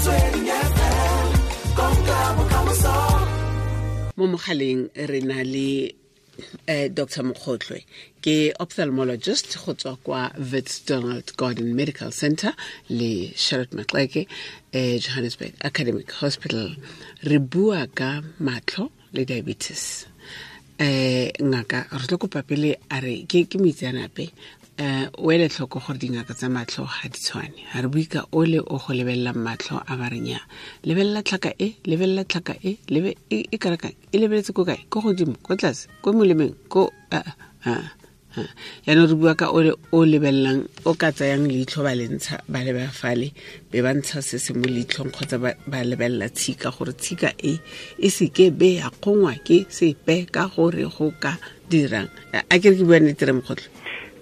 Motsweding FM, konka bokamoso. Mo mogaleng re na le Dr. Mokgotlwe, ke ophthalmologist go tswa kwa Wits Donald Gordon Medical Center le Charlotte Maxeke, Johannesburg Academic Hospital. Re bua ka matlho le diabetes. Ngaka, re tlo kopa pele a re ke moitseanape, o ele tlhoko gore dingaka tsa matlho ga di tshwane. Ga re bue ka ole o go lebelelang matlho a ba reng ya lebelela tlhaka e, lebelela tlhaka e, lebe e, e kana kang, e lebeletse ko kae, ko godimo, ko tlase, ko molemeng, ko a, a, a. Yaanong re bua ka ole o lebelelang, o ka tsayang leitlho ba le ntsha, ba leba fale, be ba ntsha se se mo leitlhong, kgotsa ba lebelela tshika gore tshika e e seke be ya kgongwa ke sepe ka gore go ka dirang. A ke re ke bua nnete, re Mokgotlho?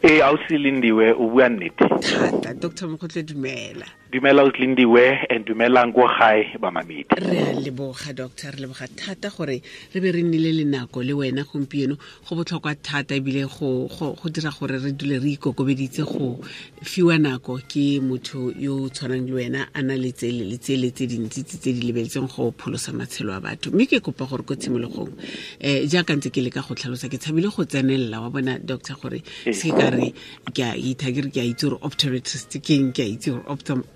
Ee, ausi Lindiwe, o bua nnete. Thata. Doctor Mokgotlho, dumela. Dumela ausi Lindiwe, and dumelang ko gae ba mamedi. Re a leboga, doctor, re leboga thata gore re be re nnile le nako le wena gompieno. Go botlhokwa thata ebile go dira gore re dule re ikokobeditse go fiwa nako ke motho yo o tshwanang le wena, a na le tsele le tsele tse dintsi tse di lebeletseng go pholosa matshelo a batho. Mme ke kopa gore ko tshimologong, jaaka ntse ke leka go tlhalosa, ke tshabile go tsenelela wa bona, doctor, gore se ka re ke a itha, ke re ke a itse gore optometrist ke eng, ke a itse gore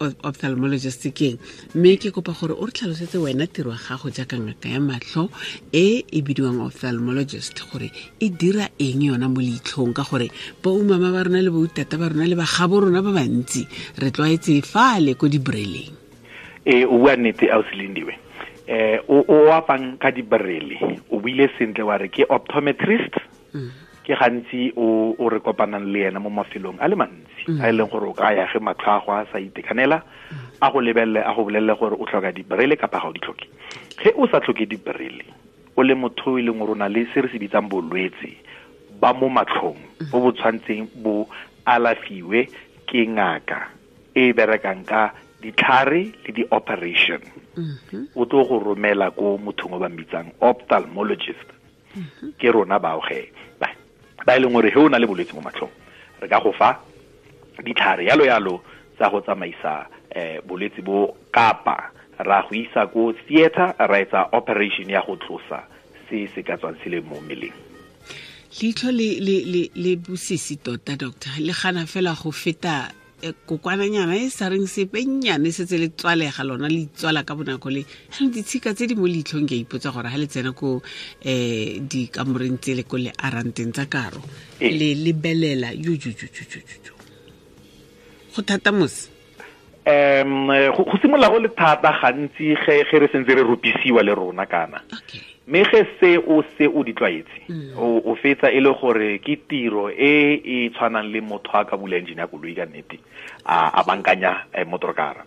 ophthalmologist ke eng. Mme ke kopa gore o re tlhalosetse wena tiro ya gago jaaka ngaka ya matlho e e bidiwang ophthalmologist, gore e dira eng yona mo leitlhong, ka gore bo mama ba rona le bo tata ba rona le bagabo rona ba bantsi re tlwaetse fale ko dibreleng. Ee, o bua nnete ausi Lindiwe. O apang ka dibrele, o buile sentle wa re ke optometrist. Ke gantsi o re kopanang le ena mo mafelong a le mantsi, a e leng gore o ka ya ge matlho a go a sa itekanela, a go lebelele, a go bolelele gore o tlhoka dibrele kapa ga o di tlhoke. Ge o sa tlhoke dibrele, o le motho e leng gore o na le se re se bitsang bolwetse ba mo matlhong, bo bo tshwantseng bo alafiwe ke ngaka e berekang ka ditlhare le di-operation, o tlo go romela ko mothong o ba mmitsang ophthalmologist. Ke rona bao ge ba e leng gore ge o na le bolwetse mo matlhong, re ka go fa ditlhare yalo yalo tsa go tsamaisa bolwetse bo, kapa ra go isa ko theater ra etsa operation ya go tlosa se se ka tswang se le mo mmeleng. Leitlho le bosisi tota, doctor, le gana fela go feta kokwananyana e sa reng sepe nnyane, setse le tswalega lona, le itswala ka bonako. Le jaanong ditshika tse di mo leitlhong, ke a ipotsa gore ga le tsena ko dikamoreng tse le ko le aranteng tsa karo, le lebelela yo, go thata mose. Go simolola go le thata gantsi ge re sentse re rupisiwa le rona kana. Mme ge se o se o di tlwaetse, o fetsa e le gore ke tiro e e tshwanang le motho a ka bula engine ya koloi ka nnete, a bankanya motorkara.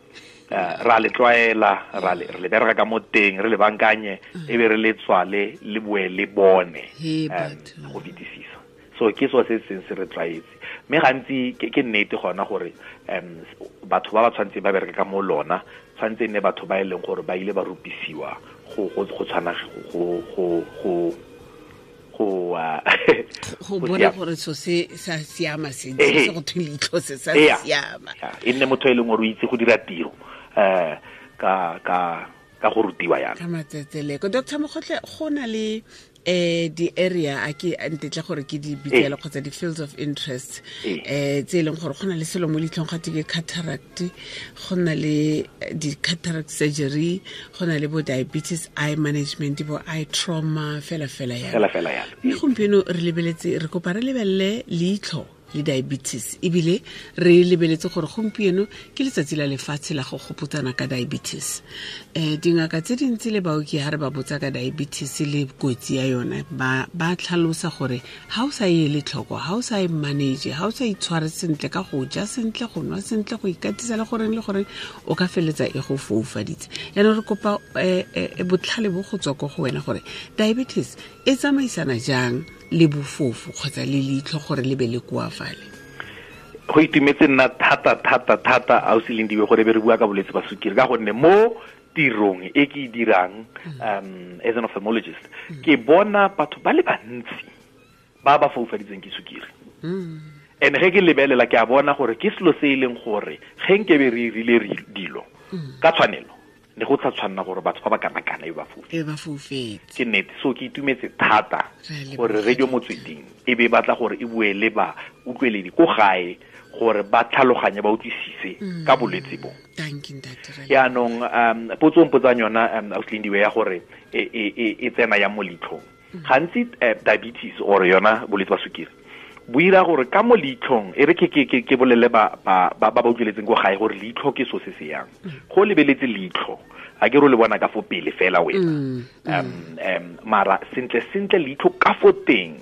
Ra le tlwaela, re le bereka ka mo teng, re le bankanye, e be re le tswale, le boe le bone, He, batho. go fetisisa. So ke so se seng se re tlwaetse. Mme gantsi ke nnete gona gore batho ba ba tshwantseng ba bereke ka mo lona, tshwanetse e nne batho ba e leng gore ba ile ba rupisiwa go tshwana go go go bona siama. Gore so se sa siama sentle, se go thwe leitlho se sa siama. Ya, e nne motho e leng gore o itse go dira tiro ka go rutiwa yana. Ka matsetseleko. Doctor Mokgotle, go na le di-area a ke ntetle gore ke di bitsele kgotsa di-fields of interest tse e leng gore go na le selo mo leitlhong gate ke cataract, go na le di-cataract surgery, go na le bo diabetes eye management, bo eye trauma, fela fela yalo. Fela fela yalo. Mme gompieno re lebeletse, re kopa re lebelele leitlho le diabetes, ebile re lebeletse gore gompieno ke letsatsi la lefatshe la go gopotsana ka diabetes. Dingaka tse dintsi le baoki, ha re ba botsa ka diabetes le kotsi ya yona, ba tlhalosa gore ha o sa e ele tlhoko, ha o sa e manage, ha o sa itshware sentle ka go ja sentle, go nwa sentle, go ikatisa le goreng le goreng, o ka feleletsa e go foufaditse. Yaanong re kopa botlhale bo go tswa ko go wena gore diabetes e tsamaisana jang le bofofu kgotsa le leitlho gore le be le koafale. Go itumetse nna thata thata thata ausi Lindiwe gore be re bua ka bolwetse ba sukiri, ka gonne mo tirong e ke e dirang, as an ophthalmologist, ke bona batho ba le bantsi ba ba foufaditsweng ke sukiri. And ge ke lebelela, ke a bona gore ke selo se e leng gore ge nkebe re rile re dilo ka tshwanelo, Ne go tsa tshwanna gore batho ba ba kana-kana e ba fofetse. Ke nnete. So ke itumetse thata gore Radio Motsweding e be batla gore e bue le ba utlweledi ko gae gore ba tlhaloganye ba utlwisise ka bolwetse bo. Thank you, Ntate. Yaanong potso mpotsang yona Ausi Lindiwe ya gore e tsena ya mo leitlhong. Gantsi diabetes or yona bolwetse ba sukiri bo ira gore ka mo leitlhong, e re ke bolele ba utlweletseng ko gae gore leitlho ke so se se yang. Go lebeletse leitlho, a ke re o le bona ka fo pele fela wena. Mara sentle sentle leitlho ka fo teng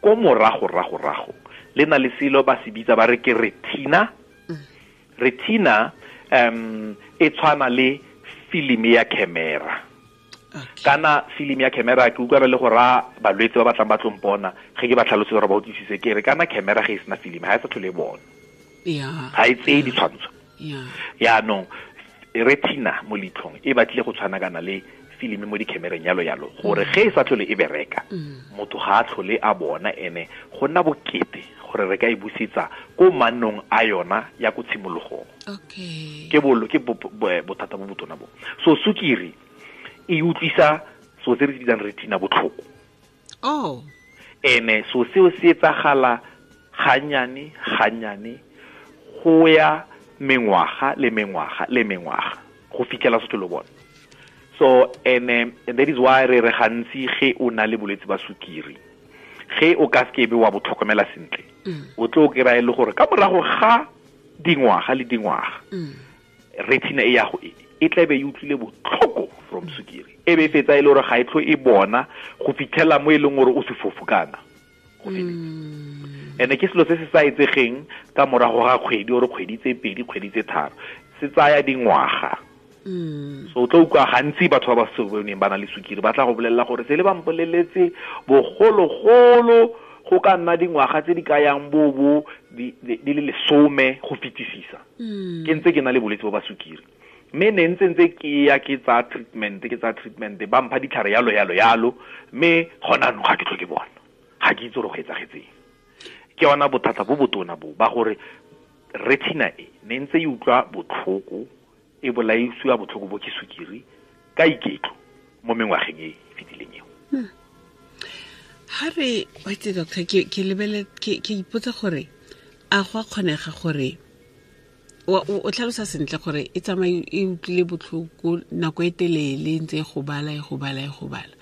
ko morago rago rago le na le selo ba se bitsa ba re ke retina. Retina e tshwana le filimi ya camera. Kana filimi ya camera ke utlwa le go ra balwetse ba batlang ba tlo mpona ge ke ba tlhalosetse gore ba utlwisise, ke re kana camera ge e sena filimi ga e sa tlhole e bona. Ga e tseye ditshwantsho. Yaanong retina mo leitlhong e batlile go tshwana kana le filimi mo di-camereng yalo yalo, gore ge e sa tlhole e bereka motho ga a tlhole a bona, ene go nna bokete gore re ka e busetsa ko mannong a yona ya ko tshimologong. Ke bolo ke bothata bo botona bo. So sukiri e utlwisa so se re se bitsang retina botlhoko. Ene so seo se etsagala ganyane ganyane go ya mengwaga le mengwaga le mengwaga go fitlhela se tlhole bona. So and that is why re gantsi ge o na le bolwetse ba sukiri, ge o ka se be wa bo tlhokomela sentle, o tlo kry-a e le gore ka morago ga dingwaga le dingwaga retina e ya go e tlabe e utlwile botlhoko from sukiri, e be fetsa e le gore ga e tlo e bona go fitlhela mo e leng gore o sefofu kana go feletse. Ene ke selo se se sa etsegeng ka morago ga kgwedi ore kgwedi tse pedi, kgwedi tse tharo, se tsaya dingwaga. So o tlo utlwa gantsi batho ba ba se boneng ba na le sukiri ba tla go bolelela gore se le ba mpoleletse bogologolo go ka nna dingwaga tse di ka yang bo di le 10 go fetisisa. Ke ntse ke na le bolwetse bo ba sukiri, mme ne ntse ke ya ke tsa treatment, ba mpha ditlhare yalo yalo yalo, mme gona anong ga ke tlho ke bona, ga ke itse gore go etsagetseng. Ke yona bothata bo botona bo ba gore retina e ne ntse e utlwa botlhoko, e bolaisiwa botlhoko bo ke sukiri ka iketlo mo mengwageng e fetileng eo. Ha re wait doctor, ke lebele ke ipotsa gore a go a kgonega gore o tlhalosa sentle gore e tsamaye e utlwile botlhoko nako e telele ntse e go bala e go bala e go bala.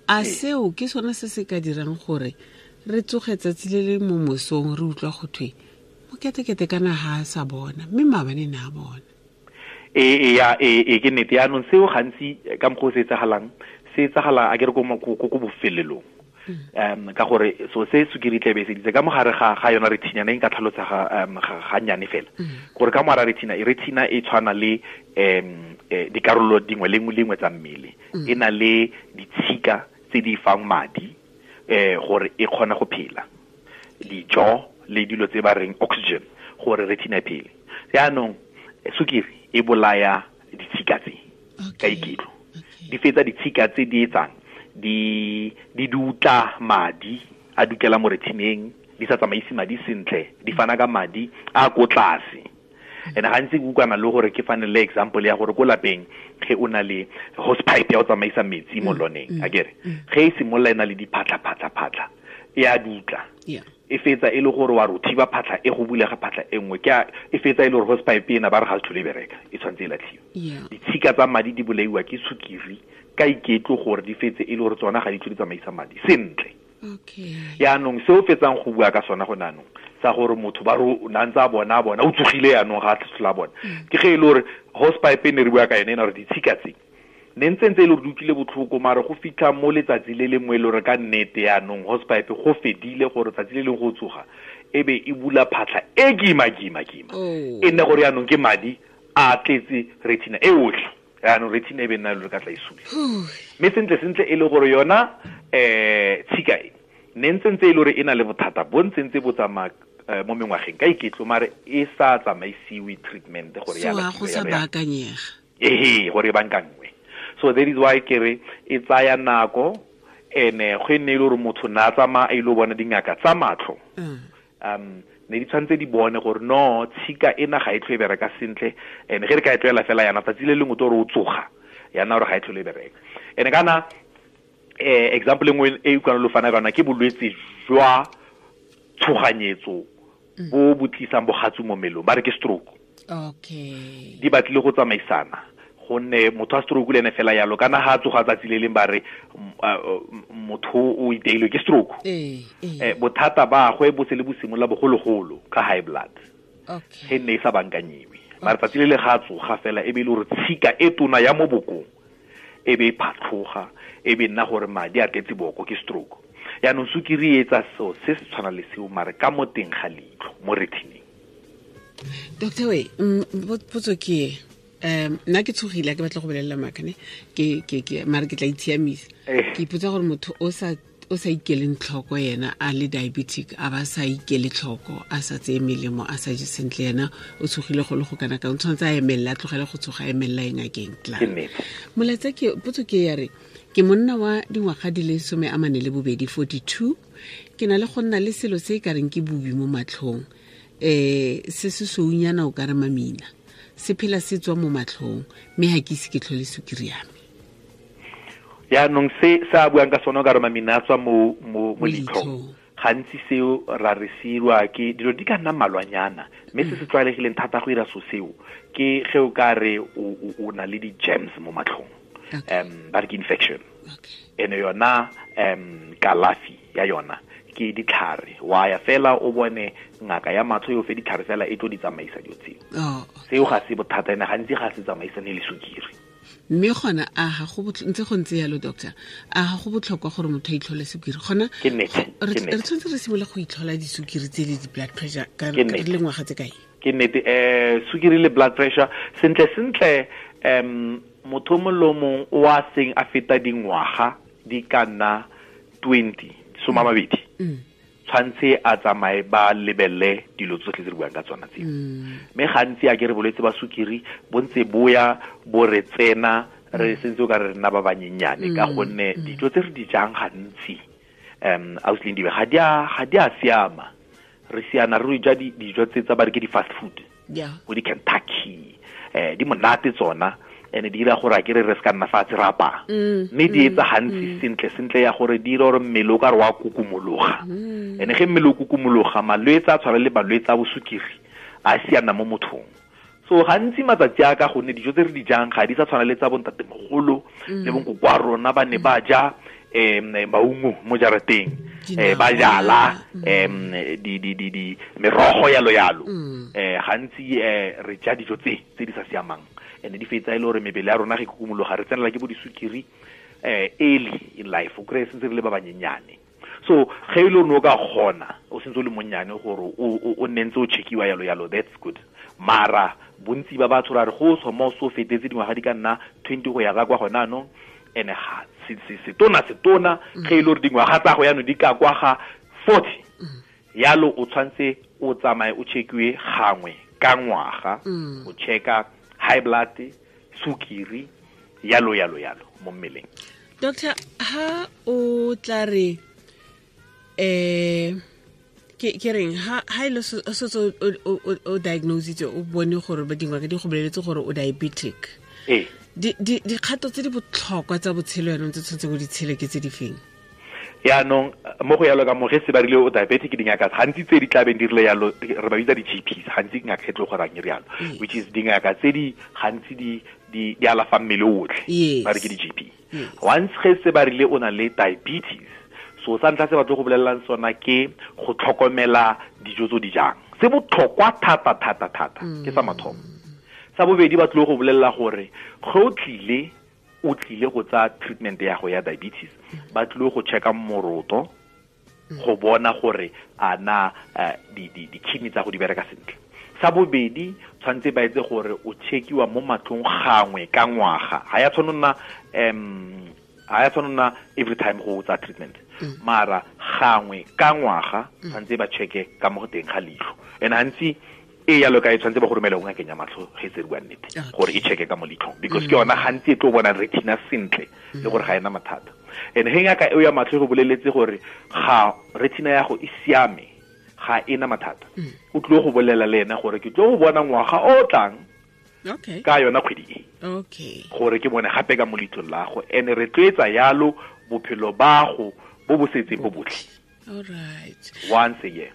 A seo ke sone se se ka dirang gore re tsoge tsatsi le le mo mosong re utlwa go thwe moketekete kana ha a sa bona, mme maabane ne a bona. E ke nnete. Yaanong seo gantsi ka mokgwa o se etsagalang, se etsagala a ke re ko bofelelong. Ka gore so se sukiri tlabe e seditse ka mogare ga yona retina ne nka tlhalosa ga nnyane fela. Gore ka mogare retina e tshwana le dikarolo dingwe le nngwe tsa mmele. E na le ditshika tse di fang madi gore e kgone go phela, dijo le dilo tse ba reng oxygen gore retina e phele. Yaanong sukiri e bolaya ditshika tse ka iketlo. Di fetsa ditshika tse di etsang di dutla madi a dutlela mo retineng, di sa tsamaise madi sentle, di fana ka madi a ko tlase. And gantsi ke utlwana le gore ke fane le example ya gore ko lapeng ge o na le hose pipe ya go tsamaisa metsi mo loneng, akere ge e simolola e na le diphatlha phatlha phatlha e a dutla. E fetsa e le gore wa re thiba phatlha e go bulega phatlha e nngwe, ke e fetsa e le gore hose pipe ena ba re ga se tlhole e bereka, e tshwanetse e latlhiwe. Ditshika tsa madi di bolaiwa ke sukiri ka iketlo gore di fetse e le gore tsona ga di tlhole di tsamaisa madi sentle. Yaanong se o fetsang go bua ka sona go naanong sa gore motho ba re o na ntse a bona o tsogile yaanong ga a tlhola bona, ke ge e le gore hose pipe e ne re bua ka yone ena gore ditshika tse ne ntse e le gore di utlwile botlhoko, mare go fitlha mo letsatsi le lengwe e le gore ka nnete yaanong hose pipe go fedile gore tsatsi le leng go tsoga e be e bula phatlha e kima kima kima, e nne gore yaanong ke madi a tletse retina e otlhe. Yaanong retina e be nna le ka tla e sule. Mme sentle sentle e le gore yona tshika e ne ntse e le gore e na le bothata bo ntse ntse bo tsamaya mo mengwageng ka iketlo, mare e sa tsamaisiwe treatment gore ya go sa baakanyega. Gore e bankangwe. So that is why ke re e tsaya nako, ene go nne e le gore motho na tsamaya a ile go bona dingaka tsa matlho. Ne di tshwanetse di bone gore no tshika ena ga e tlho e bereka sentle, and ge re ka e tloela fela yana tsatsi le lengwe to re o tsoga yana gore ga e tlhole e bereka. And kana example nngwe e utlwana lo fana ka yona ke bolwetse jwa tshoganyetso bo bo tlisang bogatsu mo mmelong, ba re ke stroke. Okay. Di batlile go tsamaisana, gonne motho a stroke le ene fela yalo kana ha tsoga tsatsi le leng ba re motho o iteilwe ke stroke. Bothata ba gwe bo se le bo simolla bogologolo ka high blood. Okay. Ge ne e sa bankanyiwe. Mara tsatsi le le ga tsoga fela e be le gore tshika e tona ya mo bokong e be e phatlhoga, e be nna gore madi a tletse boko, ke stroke. Yaanong sukiri e etsa seo se se tshwana le seo mare ka mo teng ga leitlho mo retineng. Doctor we, potso ke nna ke tshogile, ke batla go bolelela maaka ne, ke mare ke tla itshiamisa. Ke ipotsa gore motho o sa ikeleng tlhoko yena a le diabetic, a ba sa ikele tlhoko, a sa tseye melemo, a sa je sentle, yena o tshogile go le go kana ka o tshwanetse a emelela, a tlogele go tshoga, a emelela e ngakeng tla. Molaetsa ke potso ke ya re ke monna wa dingwaga di le 42, 42, ke na le go nna le selo se e ka reng ke bobi mo matlhong, se se sounyana o ka re mamina, se phela se tswa mo matlhong, mme ha ke ise ke tlhole sukiri ya me. Yaanong se a buang ka sone o ka re mamina a tswa mo leitlhong, gantsi seo ra re seirwa ke dilo di ka nna mmalwanyana, mme se se tlwaelegileng thata go ira so seo ke ge o ka re o na le di-germs mo matlhong, ba re ke infection. Ene yona kalafi ya yona ke ditlhare, wa ya fela o bone ngaka ya matlho yo fe ditlhare fela e tlo di tsamaisa dilo tseo. Seo ga se bothata, ene gantsi ga se tsamaisane le sukiri. Mme gona a ga go ntse go ntse yalo doctor, a ga go botlhokwa gore motho a itlhole sukiri? Gona ke nnete, re tshwanetse re simole go itlhola disukiri tse le di-blood pressure ka re le ngwaga tse kae? Ke nnete, sukiri le blood pressure sentle sentle, motho mongwe le mongwe o a seng a feta dingwaga di ka nna 20, 20, tshwanetse a tsamaye ba lebelele dilo tsotlhe tse re buang ka tsona tseo. Mme gantsi a ke re bolwetse ba sukiri bo ntse boya bo re tsena re sentse o ka re nna ba banyenyane, ka gonne dijo tse re di jang gantsi ausi Lindiwe ga di a siama. Re siana re ja dijo tse tsa ba re ke di-fast food, bo di-Kentucky, di monate tsona, ene di dira gore a ke re se ka nna fatshe re apaya, mme di etsa gantsi sentle sentle ya gore di dira gore mmele o ka re wa kukumologa. Ene ge mmele o kukumologa, malwetse a tshwana le malwetse a bosukiri a siana mo mothong. So gantsi matsatsi a ka gonne dijo tse re di jang ga di sa tshwana le tsa bontatemogolo le bonkoko wa rona, ba ne ba ja maungo mo jarateng, ba jala di merogo yalo yalo. Gantsi re ja dijo tse di sa siamang, ene di fetsa e le gore mebele ya rona ge kukumologa re tsenela ke bo disukiri early in life, o kry-e sentse re le ba banyenyane. So ge e le gore o ka kgona o sentse o le monnyane gore o nne ntse o checkiwa yalo yalo, that's good. Mara bontsi ba batho ra re go tswa mo so fetetse dingwaga di ka nna 20 go ya ka kwa gona anong, ene ga setona ge e le gore dingwaga tsa go yanong di ka kwa ga 40, yalo o tshwanetse o tsamaye o checkiwe gangwe ka ngwaga, o checka high blood, sukiri, yalo yalo yalo mo mmeleng. Doctor, ha o tla re ke reng ha ile so o diagnose o bone gore ba dingaka di go boleletse gore o diabetic, dikgato tse di botlhokwa tsa botshelo yanong tse tshwanetse go di tshele ke tse di feng? Yaanong mo go yalo ka mo ge se ba rile o diabetic, dingaka gantsi tse di tlabeng di rile yalo re ba bitsa di-GPs, gantsi ngaka e tlo gorang e rialo, which is dingaka tse di gantsi di alafa mmele otlhe, ba re ke di-GP. Once ge se ba rile o na le diabetes, so sa ntlha se ba tlo go bolelelang sona ke go tlhokomela dijo tse di jang, se botlhokwa thata thata thata, ke sa mathomo. Sa bobedi ba tlo go bolelela gore ge o tlile go tsa treatment ya go ya diabetes, ba tlile go checka moroto go bona gore a na di-kidney tsa go di bereka sentle. Sa bobedi tshwanetse ba etse gore o checkiwa mo matlhong gangwe ka ngwaga, ga ya tshwanna every time go tsa treatment, mara gangwe ka ngwaga tshwanetse ba checke ka mo teng ga leitlho. And gantsi e yalo ka e tshwanetse ba go romele go ngakeng ya matlho ge se bua nnete, gore e checke ka mo leitlhong, because ke yona gantsi e tlo bona retina sentle le gore ga ena mathata. And ge ngaka eo ya matlho e go boleletse gore ga retina ya go e siame, Ga ena mathata. O tlo go bolela le ena gore ke tlo go bona ngwaga o tlang ka yona kgwedi e. Gore ke bone gape ka mo leitlong la go. Ene re tloetsa yalo bophelo ba go bo bo setseng bo botlhe. All right. Once a year.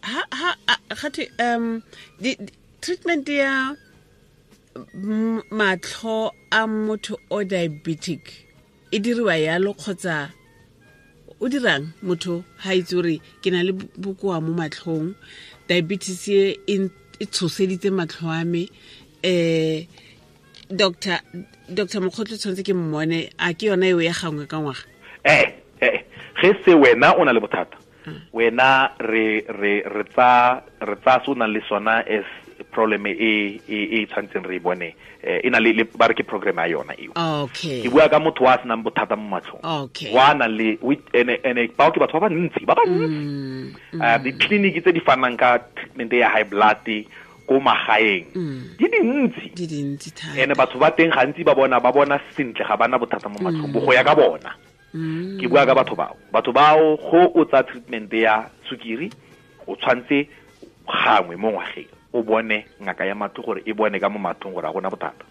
Ha ha gate di treatment ya matlho a motho o diabetic e diriwa yalo kgotsa o dirang motho ha itse gore ke na le bokoa mo matlhong, diabetes e e tshoseditse matlho a me, Dr. Mokgotlho tshwanetse ke mmone, a ke yona eo ya gangwe ka ngwaga? Ge se wena o na le bothata, wena re tsa se o nang le sona as problem e e tshwantseng re bone, e na le ba re ke program ya yona eo. Okay. Ke bua ka motho wa senang bothata mo matlhong. Okay. Wa na le ene bao ke batho ba bantsi. Di-clinic tse di fanang ka treatment ya high blood ko magaeng di dintsi. Di dintsi thata. Ene batho ba teng gantsi ba bona sentle, ga bana bothata mo matlhong, bo go ya ka bona. Ke bua ka batho bao. Batho bao go o tsa treatment ya sukiri, o tshwantse gangwe mo ngwageng o bone ngaka ya matlho gore e bone ka mo matlhong gore a gona bothata.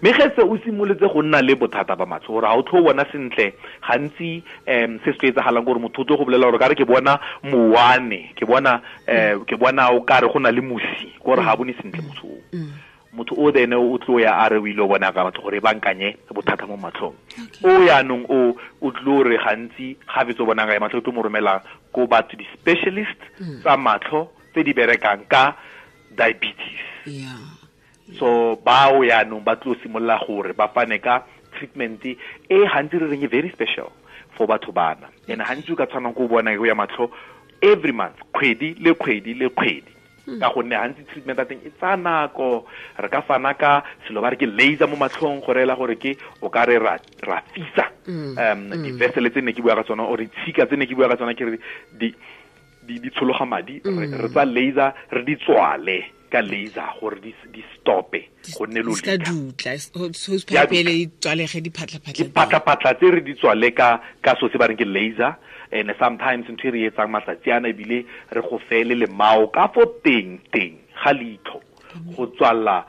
Mme ge se o simolotse go nna le bothata ba matlho gore ga o tlho bona sentle, gantsi se se tlo etsagalang gore motho o tlo go bolela gore ka re ke bona mowane, ke bona o kare go na le mosi, gore ga bone sentle motho o. Motho o then o tlo ya a re o ile o bona ka batho gore e bankanye bothata mo matlhong. O yaanong o tlo re gantsi ga fetsa o bona ngaka ya matlho, o tlo mo romela ko batho di-specialist tsa matlho tse di berekang ka diabetes. Yeah. So bao yaanong ba tlo simolola gore ba fane ka treatment e gantsi re reng e very special for batho bana. And gantsi o ka tshwanang ko bona ya matlho every month, kgwedi le kgwedi le kgwedi. Ka gonne gantsi treatment ya teng e tsaya nako, re ka fana ka selo ba re ke laser mo matlhong go reela gore ke o ka re ra fisa di-vessel tse ne ke bua ka tsona, or ditshika tse ne ke bua ka tsona, ke re di tshologa madi, re tsa laser re di tswale ka laser gore di stope go nne lo lika dutla so pele di tswalege diphatlaphatla tse re di tswale ka so se ba reng ke laser. And sometimes ntho e re etsang matsatsi ana ebile re go fele lemao ka fo teng ga leitlho go tswalla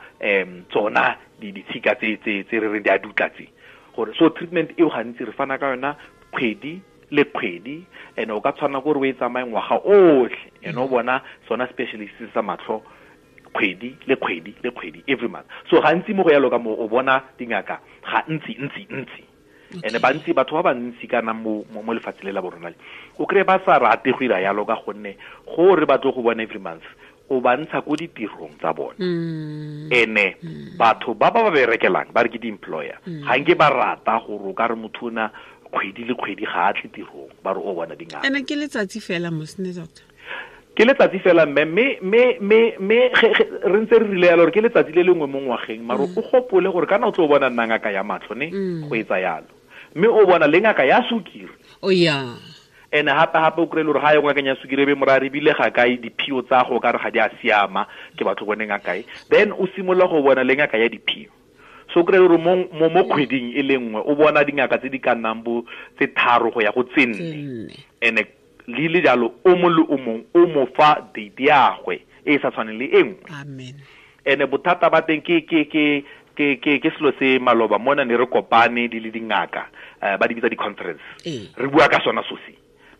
tsona ditshika tse re reng di a dutla tse. Gore so treatment eo gantsi re fana ka yona kgwedi le kgwedi, and o ka tshwana gore o e tsamaye ngwaga otlhe, and o bona sona specialist sa matlho kgwedi le kgwedi le kgwedi every month. So gantsi mo go yalo ka mo o bona dingaka ga ntsi. And bantsi batho ba bantsi kana mo lefatshe le la borona le o kry ba sa rate go ira yalo ka gonne gore ba tlo go bona every month o ba ntsha ko ditirong tsa bona. Ene batho ba ba berekelang ba re ke di-employer ga nke ba rata gore o ka re motho ona kgwedi le kgwedi ga a tle tirong, ba re o bona dingaka. Ene ke letsatsi fela mosne doctor. Ke letsatsi fela mme re ntse re rile yalo gore ke letsatsi le lengwe mo ngwageng, mare o gopole gore kana o tlo bona nna ngaka ya matlho ne go etsa yalo, mme o bona le ngaka ya sukiri. Oh yeah. Ene gape o kry-e le gore ga ye ngakeng ya sukiri e be morare ebile ga kae diphio tsa go ka re ga di a siama, ke batho bone ngakae. Then o simolola go bona le ngaka ya diphio. So o kry-e le gore mo kgweding e le nngwe o bona dingaka tse di ka nnang bo tse 3 go ya go tse 4. Ene le le jalo o mong le o mong o mo fa date ya gwe e sa tshwaneng le e nngwe. Amen. Ene bothata ba teng ke selo se maloba mona ne re kopane di le dingaka, ba di bitsa di-conference. Re bua ka sona so se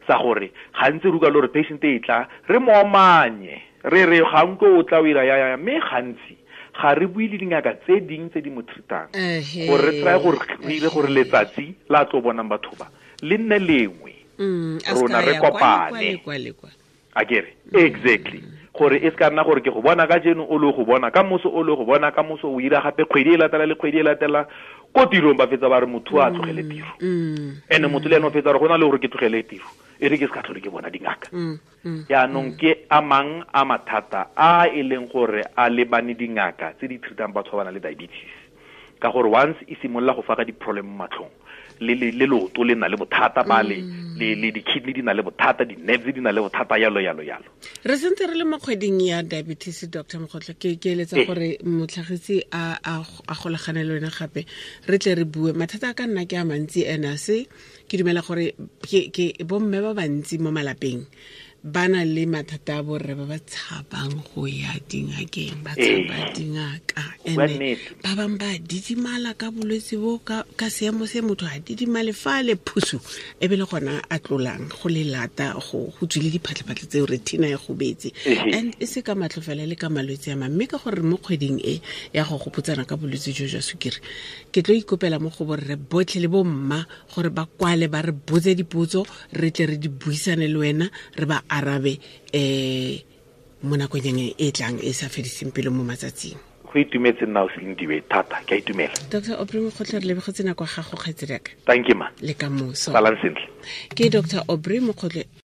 sa gore gantsi re utlwa le gore patient e tla re mo omanye, re re ga nko o tla o ira ya mme gantsi ga re bue le dingaka tse ding tse di mo treatang gore re try gore re ire gore letsatsi la tlo bonang batho ba le nne lengwe. Rona re kopane akere exactly gore e se ka nna gore ke go bona ka jeno o le go bona ka moso o le go bona ka moso o ira gape kgwedi e latela le kgwedi e latela ko tirong ba fetsa ba re motho a tlogele tiro. Ene motho le ene o fetsa re go na le gore ke tlogele tiro e re ke se ka tlhole ke bona dingaka. Yaanong ke a mang a mathata a e leng gore a lebane dingaka tse di treatang batho ba ba nang le diabetes, ka gore once e simolola go fa ka di-problem mo matlhong le leoto le na le bothata ba le di-kidney di na le bothata, di-nerves di na le bothata, yalo yalo yalo. Re sentse re le mo kgweding ya diabetes, Dr. Mokgotlho, ke eletsa gore motlhagisi a golagane le wena gape re tle re bue. Mathata a ka nna ke a mantsi, ene se ke dumela gore ke bomme ba bantsi mo malapeng Ba na le mathata a borre ba ba tshabang go ya dingakeng, ba tshaba dingaka. Ene ba bangwe ba didimala ka bolwetse bo, ka seemo se motho a didimale fa le phusu e be le gona a tlolang go le lata, go tswile diphatlhaphatlhe tseo, retina e gobetse. And e se ka matlho fela, le ka malwetse a mang. Mme ka gore mo kgweding e ya go gopotsana ka bolwetse jo jwa sukiri, ke tlo ikopela mo go borre botlhe le bo mma gore ba kwale, ba re botse dipotso, re tle re di buisane le wena, re ba arabe mo nakong e tlang e sa fediseng pelo mo matsatsing. Go itumetse nna o Selindiwe thata, ke a itumela. Dr Aubrey Mokgotlhe, re lebogetse nako ya gago, kgaitsedi yaka. Thank you, ma. Le ka moso. Salang sentle. Ke Dr Aubrey Mokgotlhe.